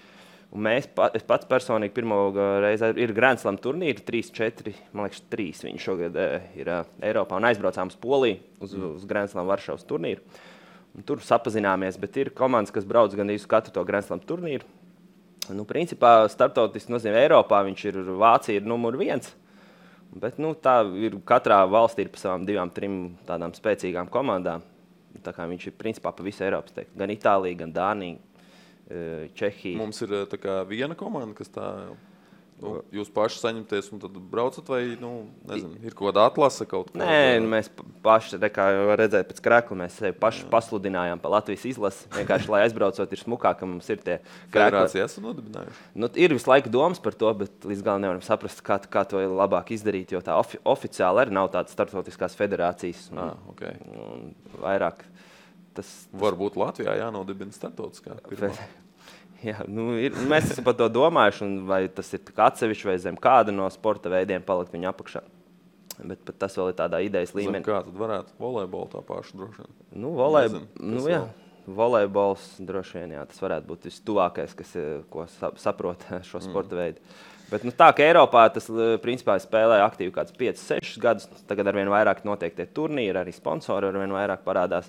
Un es pats personīgi pirmo reizi ir Grand Slam turnīri, 3-4, man liekas 3 viņi šogad ir Eiropā un aizbraucām uz Poliju uz Grand Slam Varšavas turnīru. Un tur sapazināmies, bet ir komandas, kas brauc gan uz katru to Grand Slam turnīru. Principā starptautiski nozīmē Eiropā, Vācija ir numur 1, bet tā ir katrā valstī ir pa savām 2-3 tādām spēcīgām komandām. Tā kā viņš ir principā pa visu Eiropas teikt, gan Itālija, gan Dānija. Čehija. Mums ir tā kā viena komanda, kas tā, jūs paši saņemties un tad braucat vai, nezinu, ir kaut kāda atlase kaut kā? Nē, mēs paši, kā var redzēt pēc krekla, mēs sevi paši pasludinājām pa Latvijas izlasi, vienkārši, lai aizbraucot ir smukāk, ka mums ir tie krekli. Federācija esat nodibinājuši? Ir visu laiku domas par to, bet līdz galam nevaram saprast, kā to ir labāk izdarīt, jo tā oficiāli arī nav tādas starptautiskās federācijas. Okay. Un vairāk tas... Varbūt Latvijā jānodibina starptautiskā pirmā. Jā, mēs esam par to domājuši, un vai tas ir atsevišķi vai zem kāda no sporta veidiem palikt viņa apakšā. Bet tas vēl ir tādā idejas līmenī. Zem kā tad varētu volejbolu tā pašu droši vien? Volejbols droši vien, jā, tas varētu būt vistuvākais, ko saprot šo sporta veidu. Bet tā, ka Eiropā tas principā spēlē aktīvi kāds 5-6 gadus, tagad arvien vairāk notiek tie turnīri, arī sponsori arvien vairāk parādās.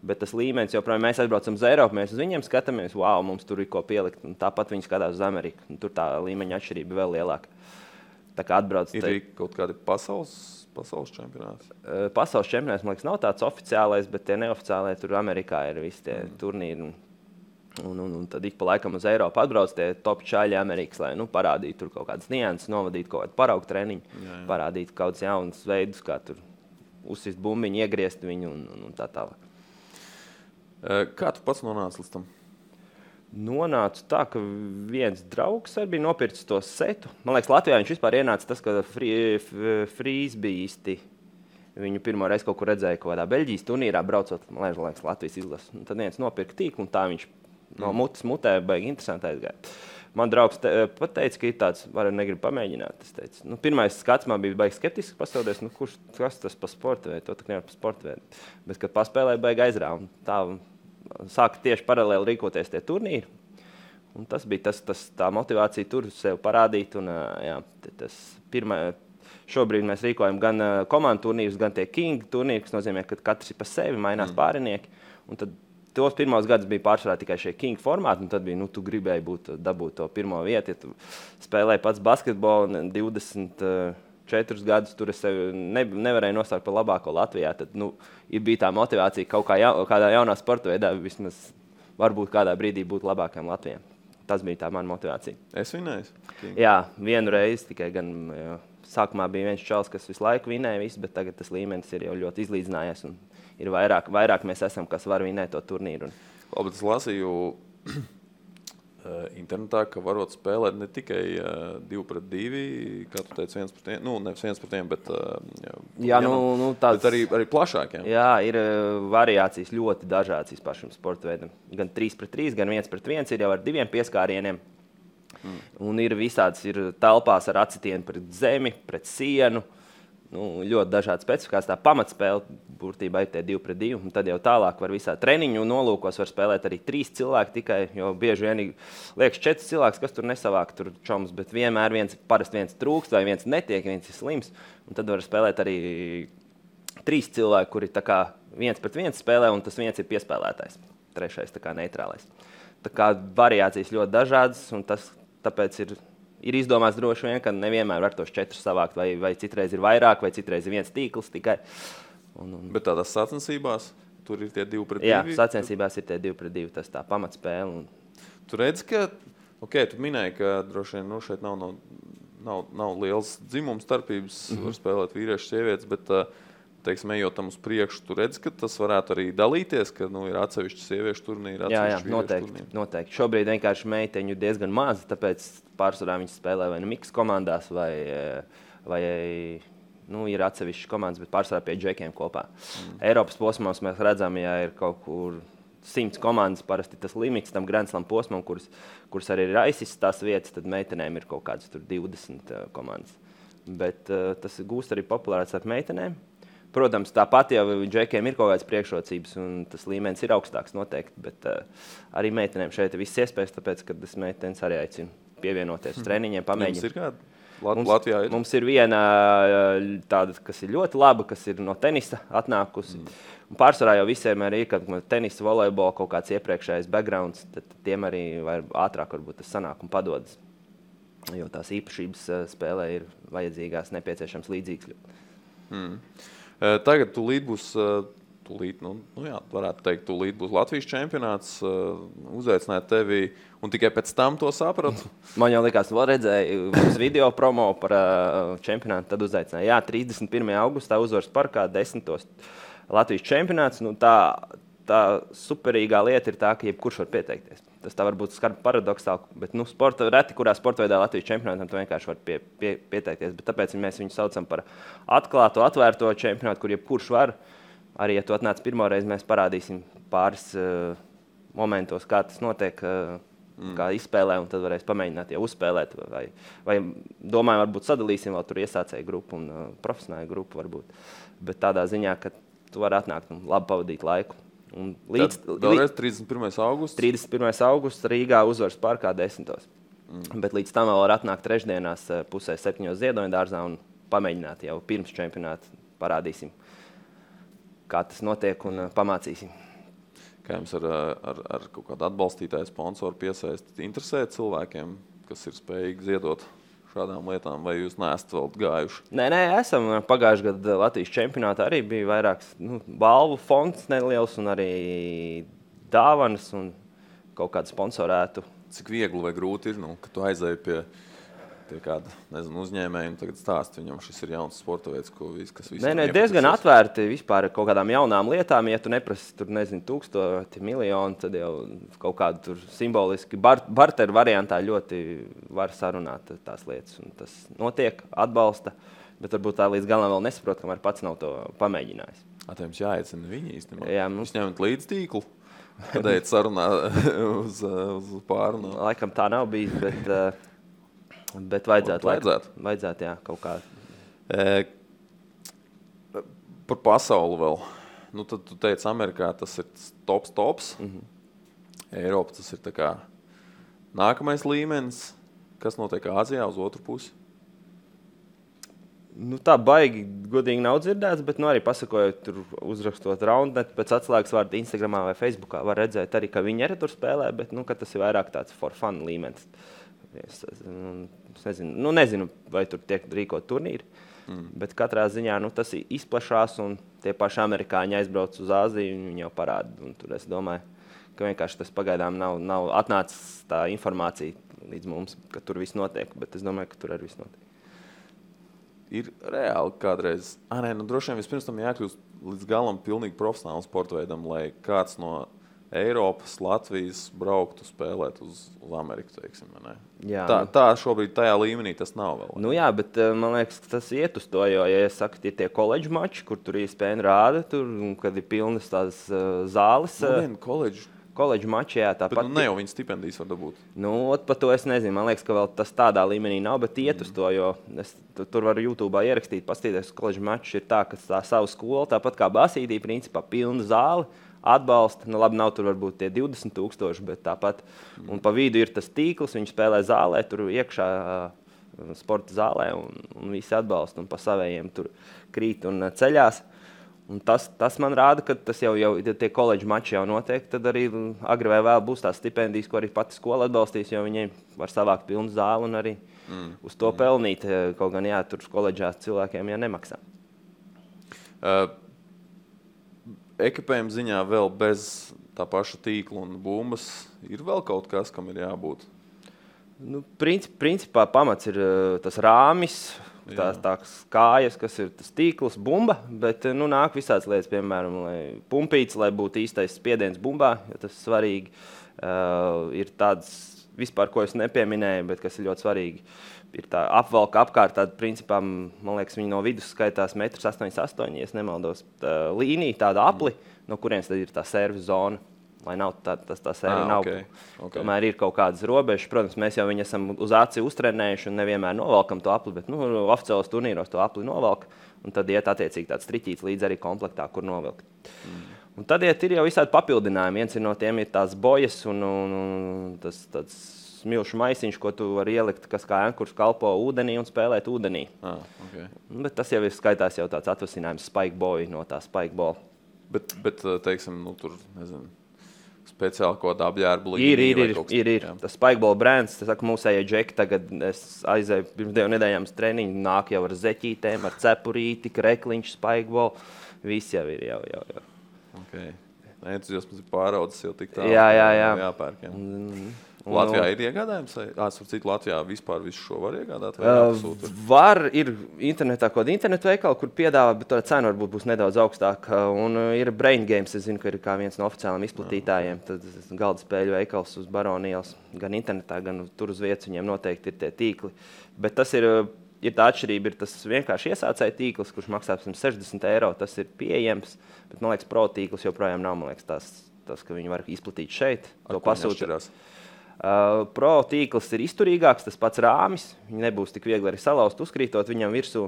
Bet tas līmenis, joprojām mēs aizbraucam uz Eiropu, mēs uz viņiem skatāmies, mums tur ir ko pielikt. Un tāpat viņi skatās uz Ameriku. Tur tā līmeņa atšķirība vēl lielāka. Tā kā atbrauc... Ir kaut kādi pasaules čempionāti? Pasaules čempionāts, man liekas, nav tāds oficiālais, bet tie neoficiālie tur Amerikā ir visi tie turnīri. Un tad ik pa laikam uz Eiropu atbrauc tie top čaļi Amerikas, lai parādītu tur kaut kādas nianses, novadītu kaut kādu paraugu treniņu, parādītu kaut kādus jaunus veidus, kā tur uzsist bumbiņu, iegriezt viņu un tā tālāk. Kā tu pats nonāci līdz tam? Nonācu tā, ka viens draugs arī bija nopircis to setu. Man liekas, Latvijā viņš vispār ienāca tas, ka frīzbīsti viņu pirmo reizi kaut kur redzēja kaut kādā Beļģijas turnīrā braucot, man liekas, Latvijas izlases. Tad viens nopirka tīklu un tā viņš no mutes mutē baigi interesanti aizgāja. Man draugs pat teica, ka ir tāds, negribu pamēģināt. Es teicu, pirmais skats man bija baigi skeptiski pastāvdies, kas tas pa sporta veidu, to tā nevar pa sporta veidu. Bet, kad paspēlēja, baigi aizrāva. Tā sāka tieši paralēli rīkoties tie turnīri. Un tas bija tā motivācija tur sev parādīt. Un, šobrīd mēs rīkojam gan komandu turnīrus, gan tie King turnīri, kas nozīmē, ka katrs ir pa sevi, mainās pārinieki. Un tad tos pirmos gadus bija pārsvarā tikai šie King formāti, un tad bija, tu gribēji dabūt to pirmo vietu. Ja tu spēlēji pats basketbolu 24 gadus, tur es sevi nevarēju nostākt par labāko Latvijā, tad bija tā motivācija kaut kādā jaunā sporta veidā vismaz varbūt kādā brīdī būt labākajam Latvijam. Tas bija tā mana motivācija. Es vinēju? Jā, vienu reizi tikai gan sākumā bija viens čals, kas visu laiku vinēja visu, bet tagad tas līmenis ir jau ļoti izlīdzinājies un ir vairāk mēs esam, kas var vinēt to turnīru. Labi, es lasīju internetā, ka varot spēlēt ne tikai 2 pret 2, kā tu teici, 1 pret 1, nevis 1 pret 1, bet, bet arī plašāk. Jā, ir variācijas ļoti dažādas vispār šim sporta veidam. Gan 3 pret 3, gan 1 pret 1 ir jau ar 2 pieskārieniem. Un ir visāds, ir telpās ar acitienu pret zemi, pret sienu. Ļoti dažādi specifikācijas. Tā pamatspēle būtībā ir tie 2 pret 2. Un tad jau tālāk var visā treniņu nolūkos var spēlēt arī 3 cilvēki tikai, jo bieži vien liekas 4 cilvēks, kas tur nesavāk tur čoms, bet vienmēr parasti viens trūkst vai viens netiek, viens ir slims. Un tad var spēlēt arī 3 cilvēki, kuri tā kā 1 pret 1 spēlē, un tas viens ir piespēlētājs. Trešais tā kā neitrālais. Tā kā variācijas ļoti dažādas, un tāpēc ir izdomāts droši vien, ka nevienmēr var tos 4 savākt, vai citreiz ir vairāk, vai citreiz ir viens tīkls tikai. Bet tādās sacensībās tur ir tie 2 pret 2? Jā, sacensībās ir tie 2 pret 2, tas tā pamatspēle. Tu redzi, ka, tu minēji, ka droši vien šeit nav liels dzimums starpības, var spēlēt vīrieši, sievietes, bet, teiksim, ejot tam uz priekšu, tu redzi, ka tas varētu arī dalīties, ka ir atsevišķi sieviešu turnīri, atsevišķi vīriešu turnīri. Jā, noteikti. Šobrīd vienkārši meiteņu diezgan maz, tāpēc pārsvarā viņas spēlē vai miks komandās, vai ir atsevišķi komandas, bet pārsvarā pie džekiem kopā. Eiropas posmos mēs redzam, ja ir kaut kur 100 komandas, parasti tas limits tam Grand Slam posmam, kuras arī ir aizsis tās vietas, tad meitenēm ir kaut kādas tur 20 komandas. Bet tas gūst arī populārāts ar meitenēm. Protams, tāpat jau džekiem ir kaut kādas priekšrocības, un tas līmenis ir augstāks noteikti, bet arī meitenēm šeit ir viss iespējas, tāpēc, kad es meitenes arī aicinu pievienoties uz treniņiem, pamēģināt. Jums ir kāda? Latvijā ir? Mums ir viena tāda, kas ir ļoti laba, kas ir no tenisa atnākusi. Un pārsvarā jau visiem arī ir, kad tenisa, volejbola kaut kāds iepriekšējais backgrounds, tad tiem arī ātrāk varbūt tas sanāk un padodas. Jo tās īpašības spēlē ir vajadzīgās, nepieciešams līdzīgs. Tagad tūlīt būs, varētu teikt, tūlīt būs Latvijas čempionāts, uzaicināt tevi, un tikai pēc tam to sapratu? Man jau likās, vēl redzēju uz video promo par čempionātu, tad uzaicināja. Jā, 31. augustā Uzvaras parkā 10. Latvijas čempionāts. Tā superīgā lieta ir tā, ka jebkurš var pieteikties. Tas tā varbūt skarbi paradoksāli, bet reti, kurā sporta veidā Latvijas čempionātam tu vienkārši var pieteikties. Bet tāpēc mēs viņu saucam par atklāto, atvērto čempionātu, kur jebkurš var. Arī, ja tu atnāc pirmo reizi, mēs parādīsim pāris momentos, kā tas notiek, kā izspēlē, un tad varēs pamēģināt jau uzspēlēt. Vai domāju, varbūt sadalīsim vēl tur iesācēju grupu un profesionālu grupu varbūt. Bet tādā ziņā, ka tu vari atnākt un labi pavadīt laiku. Vēlreiz 31. augusts? 31. augusts Rīgā Uzvaras parkā 10. Bet līdz tam vēl var atnākt trešdienās 6:30 Ziedoņa dārzā un pamēģināt jau pirms čempionāta. Parādīsim, kā tas notiek un pamācīsim. Kā jums ar kaut kādu atbalstītāju sponsoru piesaistīt interesē cilvēkiem, kas ir spējīgi ziedot šādām lietām, vai jūs neesat vēl gājuši? Nē, esam. Pagājušajā gadā Latvijas čempionātā arī bija vairāks balvu fonds neliels un arī dāvanas un kaut kādu sponsorētu. Cik viegli vai grūti ir, ka tu aizēji pie kāda, uzņēmēja un tagad stāst viņam, šis ir jauns sporta veids, kas visam Nē, diezgan atvērti vispār kaut kādām jaunām lietām. Ja tu neprasi tur, 1000, miljonu, tad jau kaut kādu tur simboliski barteru variantā ļoti var sarunāt tās lietas. Un tas notiek, atbalsta, bet varbūt tā līdz galam vēl nesaprot, kamēr pats nav to pamēģinājis. Jums jāiecina viņi īstenībā. Jā, Jūs ņemat līdz tīklu, kad ejat sarunā uz pārunu. Laikam tā nav bijis, bet vajadzētu, jā, kaut kā. Par pasauli vēl. Tad tu teici, Amerikā tas ir tops. Eiropa tas ir tā kā nākamais līmenis. Kas notiek Āzijā uz otru pusi? Tā baigi godīgi nav dzirdēts, bet arī pasakojot, tur uzrakstot Roundnet pēc atslēgas vārdu Instagramā vai Facebookā, var redzēt arī, ka viņi arī tur spēlē, bet ka tas ir vairāk tāds for fun līmenis. Es nezinu, vai tur tiek rīkot turnīri, bet katrā ziņā tas izplašās un tie paši amerikāņi aizbrauc uz Āziju un viņi jau parāda. Un tur es domāju, ka vienkārši tas pagaidām nav atnācis tā informācija līdz mums, ka tur viss notiek, bet es domāju, ka tur arī viss notiek. Ir reāli kādreiz, droši vien vispirms tam jākļūst līdz galam pilnīgi profesionālam sporta veidam, lai kāds no Eiropas, Latvijas brauktu spēlēt uz Ameriku, teiksim, ne? Jā, tā šobrīd tajā līmenī tas nav vēl. Jā, bet man liekas, tas iet uz to, jo, ja es saku, tie koledžu mači, kur tur ESPN rāda, tur, kad ir pilnas tās zāles. Koledžu mači, jā, tāpat. Bet ne jau viņa stipendijas var dabūt. Par to es nezinu. Man liekas, ka vēl tas tādā līmenī nav, bet iet uz to, jo es tur varu YouTube'ā ierakstīt, paskatīties, koledžu mači ir tā, ka tā savu skolu, tāpat kā basītī, principā pilna zāle. Atbalsta, labi, nav tur varbūt tie 20,000, bet tāpat. Un pa vidu ir tas tīkls, viņi spēlē zālē, tur iekšā sporta zālē, un visi atbalsta, un pa savējiem tur krīt un ceļās. Un tas man rāda, ka tas jau tie koledžu mači jau notiek, tad arī agri vai vēl būs tās stipendijas, ko arī pati skola atbalstīs, jo viņi var savākt pilnu zāli un arī uz to pelnīt, kaut gan tur koledžās cilvēkiem nemaksā. Ekipējuma ziņā vēl bez tā paša tīkla un bumbas ir vēl kaut kas, kam ir jābūt? Principā pamats ir tas rāmis, tās kājas, kas ir tas tīkls, bumba, bet nāk visāds lietas, piemēram, pumpīts, lai būtu īstais spiediens bumbā, jo tas svarīgi. Ir tāds vispār, ko es nepieminēju, bet kas ir ļoti svarīgi. Ir tā apvalka apkārt, tāda principā, man liekas, viņi no vidus skaitās 1,88 m, ja es nemaldos, līnija, tāda apli, no kurienes tad ir tā servis zona, lai nav tā servi nav. Okay. Tomēr ir kaut kādas robežas. Protams, mēs jau viņu esam uz aci uztrenējuši un nevienmēr novelkam to apli, bet oficiālos turnīros to apli novelk, un tad iet attiecīgi tāds triķīts līdz arī komplektā, kur novelkt. Un tad ir jau visādi papildinājumi. Viens no tiem ir tās bojas un tas tāds smilšu maisiņš, ko tu vari ielikt, kas kā ankurs kalpo ūdenī un spēlēt ūdenī. Okay. Bet tas jau ir skaitās jau tāds atvasinājums spikeboy no tā spikeball. Bet teiksim, tur, nezinu, speciāli kaut kāda apģērba līnija. Ir. Tas spikeball brands, tas saka, mūsējie džeki, tagad es aizēju pirms 2 nedēļām uz treniņu, nāk jau ar zeķītēm, ar cepurīti, krekliņš, spikeball, viss jau ir, jau. Okay. Entuziasms ir pāraudzis jau tik tālu. Jā. Jāpērk, jā. Latvijā ir iegādājums? Latvijā vispār visu šo var iegādāt? Var, ir internetā kaut kāda internetu veikala, kur piedāvā, bet tā cena varbūt būs nedaudz augstāka. Un ir Brain Games, es zinu, ka ir kā viens no oficiāliem izplatītājiem. Tad galda spēļu veikals uz Baronielas, gan internetā, gan tur uz vietas viņiem noteikti ir tie tīkli. Bet tas ir tā atšķirība, ir tas vienkārši iesācēja tīkls, kurš maksā 60 €, tas ir pieejams, bet, man liekas, pro tīkls joprojām nav, man liekas, tas, ka viņi var izplatīt šeit, to pasūtīt. Pro tīkls ir izturīgāks, tas pats rāmis, viņi nebūs tik viegli arī salauzt, uzkrītot, viņam virsū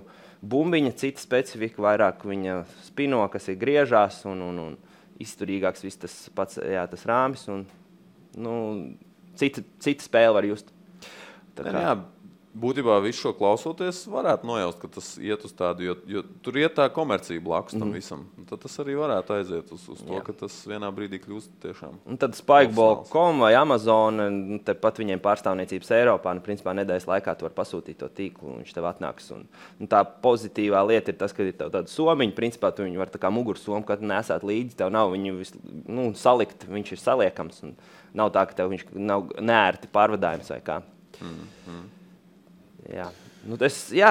bumbiņa, cita specifika, vairāk viņa spino, kas ir griežās un izturīgāks viss tas pats, tas rāmis un, cita spēle var just. Jā, Būtībā visu šo klausoties, varētu nojaust, ka tas iet uz tādu, jo tur iet tā komercija blakus tam visam. Un tad tas arī varētu aiziet uz to, ka tas vienā brīdī kļūst tiešām. Un tad Spikeball.com vai Amazon, tepat viņiem pārstāvniecības Eiropā, principā nedēļas laikā tu var pasūtīt to tīklu, un viņš tev atnāks. Un tā pozitīvā lieta ir tas, ka ir tev tāda somiņa, principā tu viņu var tā kā mugursomu, kad nesāt līdzi, tev nav viņu salikt, viņš ir saliekams. Un nav tā, ka tev viņš nav neērti pārvadājums vai kā. Jā.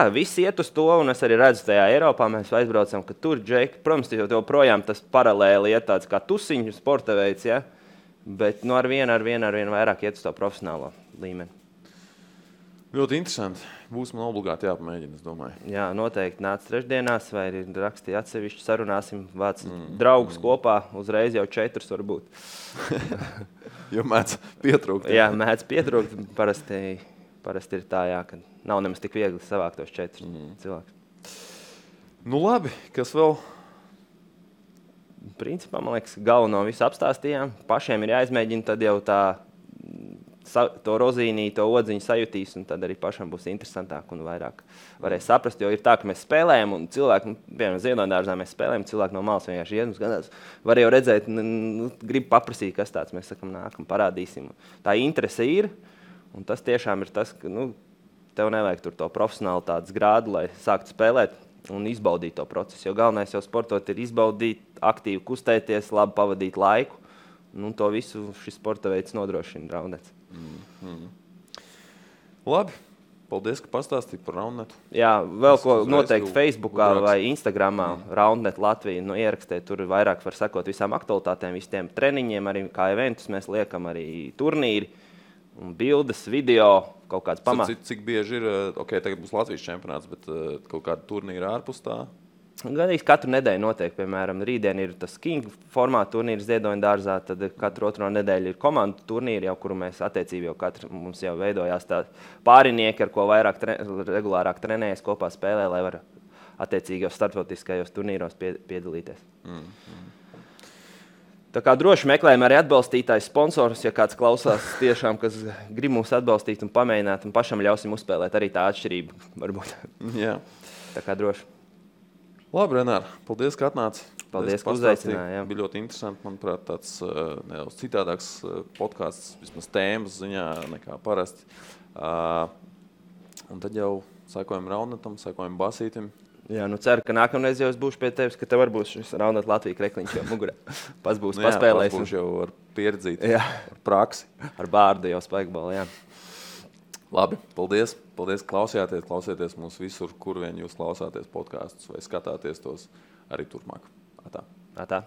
Viss iet uz to, un es arī redzu tajā Eiropā, mēs aizbraucam, ka tur, Džeki, protams, jau projām tas paralēli iet tāds kā tusiņu sporta veids, ja? Bet ar vienu vairāk iet uz to profesionālo līmeni. Ļoti interesanti. Būs man obligāti jāpamēģina, es domāju. Jā, noteikti nāc trešdienās, vai rakstīja atsevišķi, sarunāsim, vāc draugus kopā, uzreiz jau 4 varbūt. Jo mēdz pietrūkt. Jā, mēdz pietrūkt, parasti ir tā, ka nav nemaz tik viegli savākt tos 4 cilvēkus. Nu labi, kas vēl? Principā, man liekas, galveno visu apstāstījām. Pašiem ir jāizmēģina, tad jau to rozīnī, to odziņu sajutīs, un tad arī pašam būs interesantāk un vairāk varēs saprast, jo ir tā, ka mēs spēlējam, un cilvēki, piemēram, Ziedonydārzā mēs spēlējam, cilvēki no malas vienkārši iet, skatās, var jau redzēt, grib paprasīt, kas tāds, mēs sakam, nākam, parādīsim. Tā interese ir, un tas tiešām ir tas, ka, tev nevajag tur to profesionālitātes grādu, lai sāktu spēlēt un izbaudīt to procesu, jo galvenais jau sportot ir izbaudīt, aktīvi kustēties, labi pavadīt laiku, un to visu šis sporta veids nodrošina Roundnets. Labi, paldies, ka pastāstīji par Roundnetu. Jā, vēl ko noteikti Facebookā vai Instagramā Roundnet Latvija, ierakstēt, tur vairāk var sekot visām aktualitātēm, visiem treniņiem, arī kā eventus mēs liekam, arī turnīri, un bildes, video, kaut kāds pamats. Cik bieži ir, tagad būs Latvijas čempionāts, bet kaut kāda turnīra ārpus tā? Gandrīz katru nedēļu notiek, piemēram, rītdien ir tas King formāta turnīrs Ziedonydārzā, tad katru otro nedēļu ir komandu turnīri, jau kuru mēs attiecīgi mums jau veidojās tā pārinieki, ar ko vairāk regulārāk trenējas kopā spēlē, lai var attiecīgi jau starptautiskajos turnīros piedalīties. Tā kā droši meklējam arī atbalstītājs sponsorus, ja kāds klausās tiešām, kas grib mūs atbalstīt un pamēģināt, un pašam ļausim uzspēlēt arī tā atšķirība, varbūt. Jā. Tā kā droši. Labi, Renār, paldies, ka atnāci. Paldies, ka uzaicināji. Bija ļoti interesanti, manuprāt, tāds nedaudz citādāks podcasts, vismaz tēmas ziņā nekā parasti. Un tad jau sekojam Roundnetam, sekojam Basītim. Jā, ceru, ka nākamreiz jau es būšu pie tevis, ka tev var būs šis Roundnet Latvija krekliņš jau mugurē. Pats būs paspēlējis. Pats būs jau ar pieredzīti, ar praksi. Ar bārdu jau Spikeball, jā. Labi, paldies. Paldies, klausieties mūs visur, kur vien jūs klausāties podkastus vai skatāties tos arī turpmāk. Atā.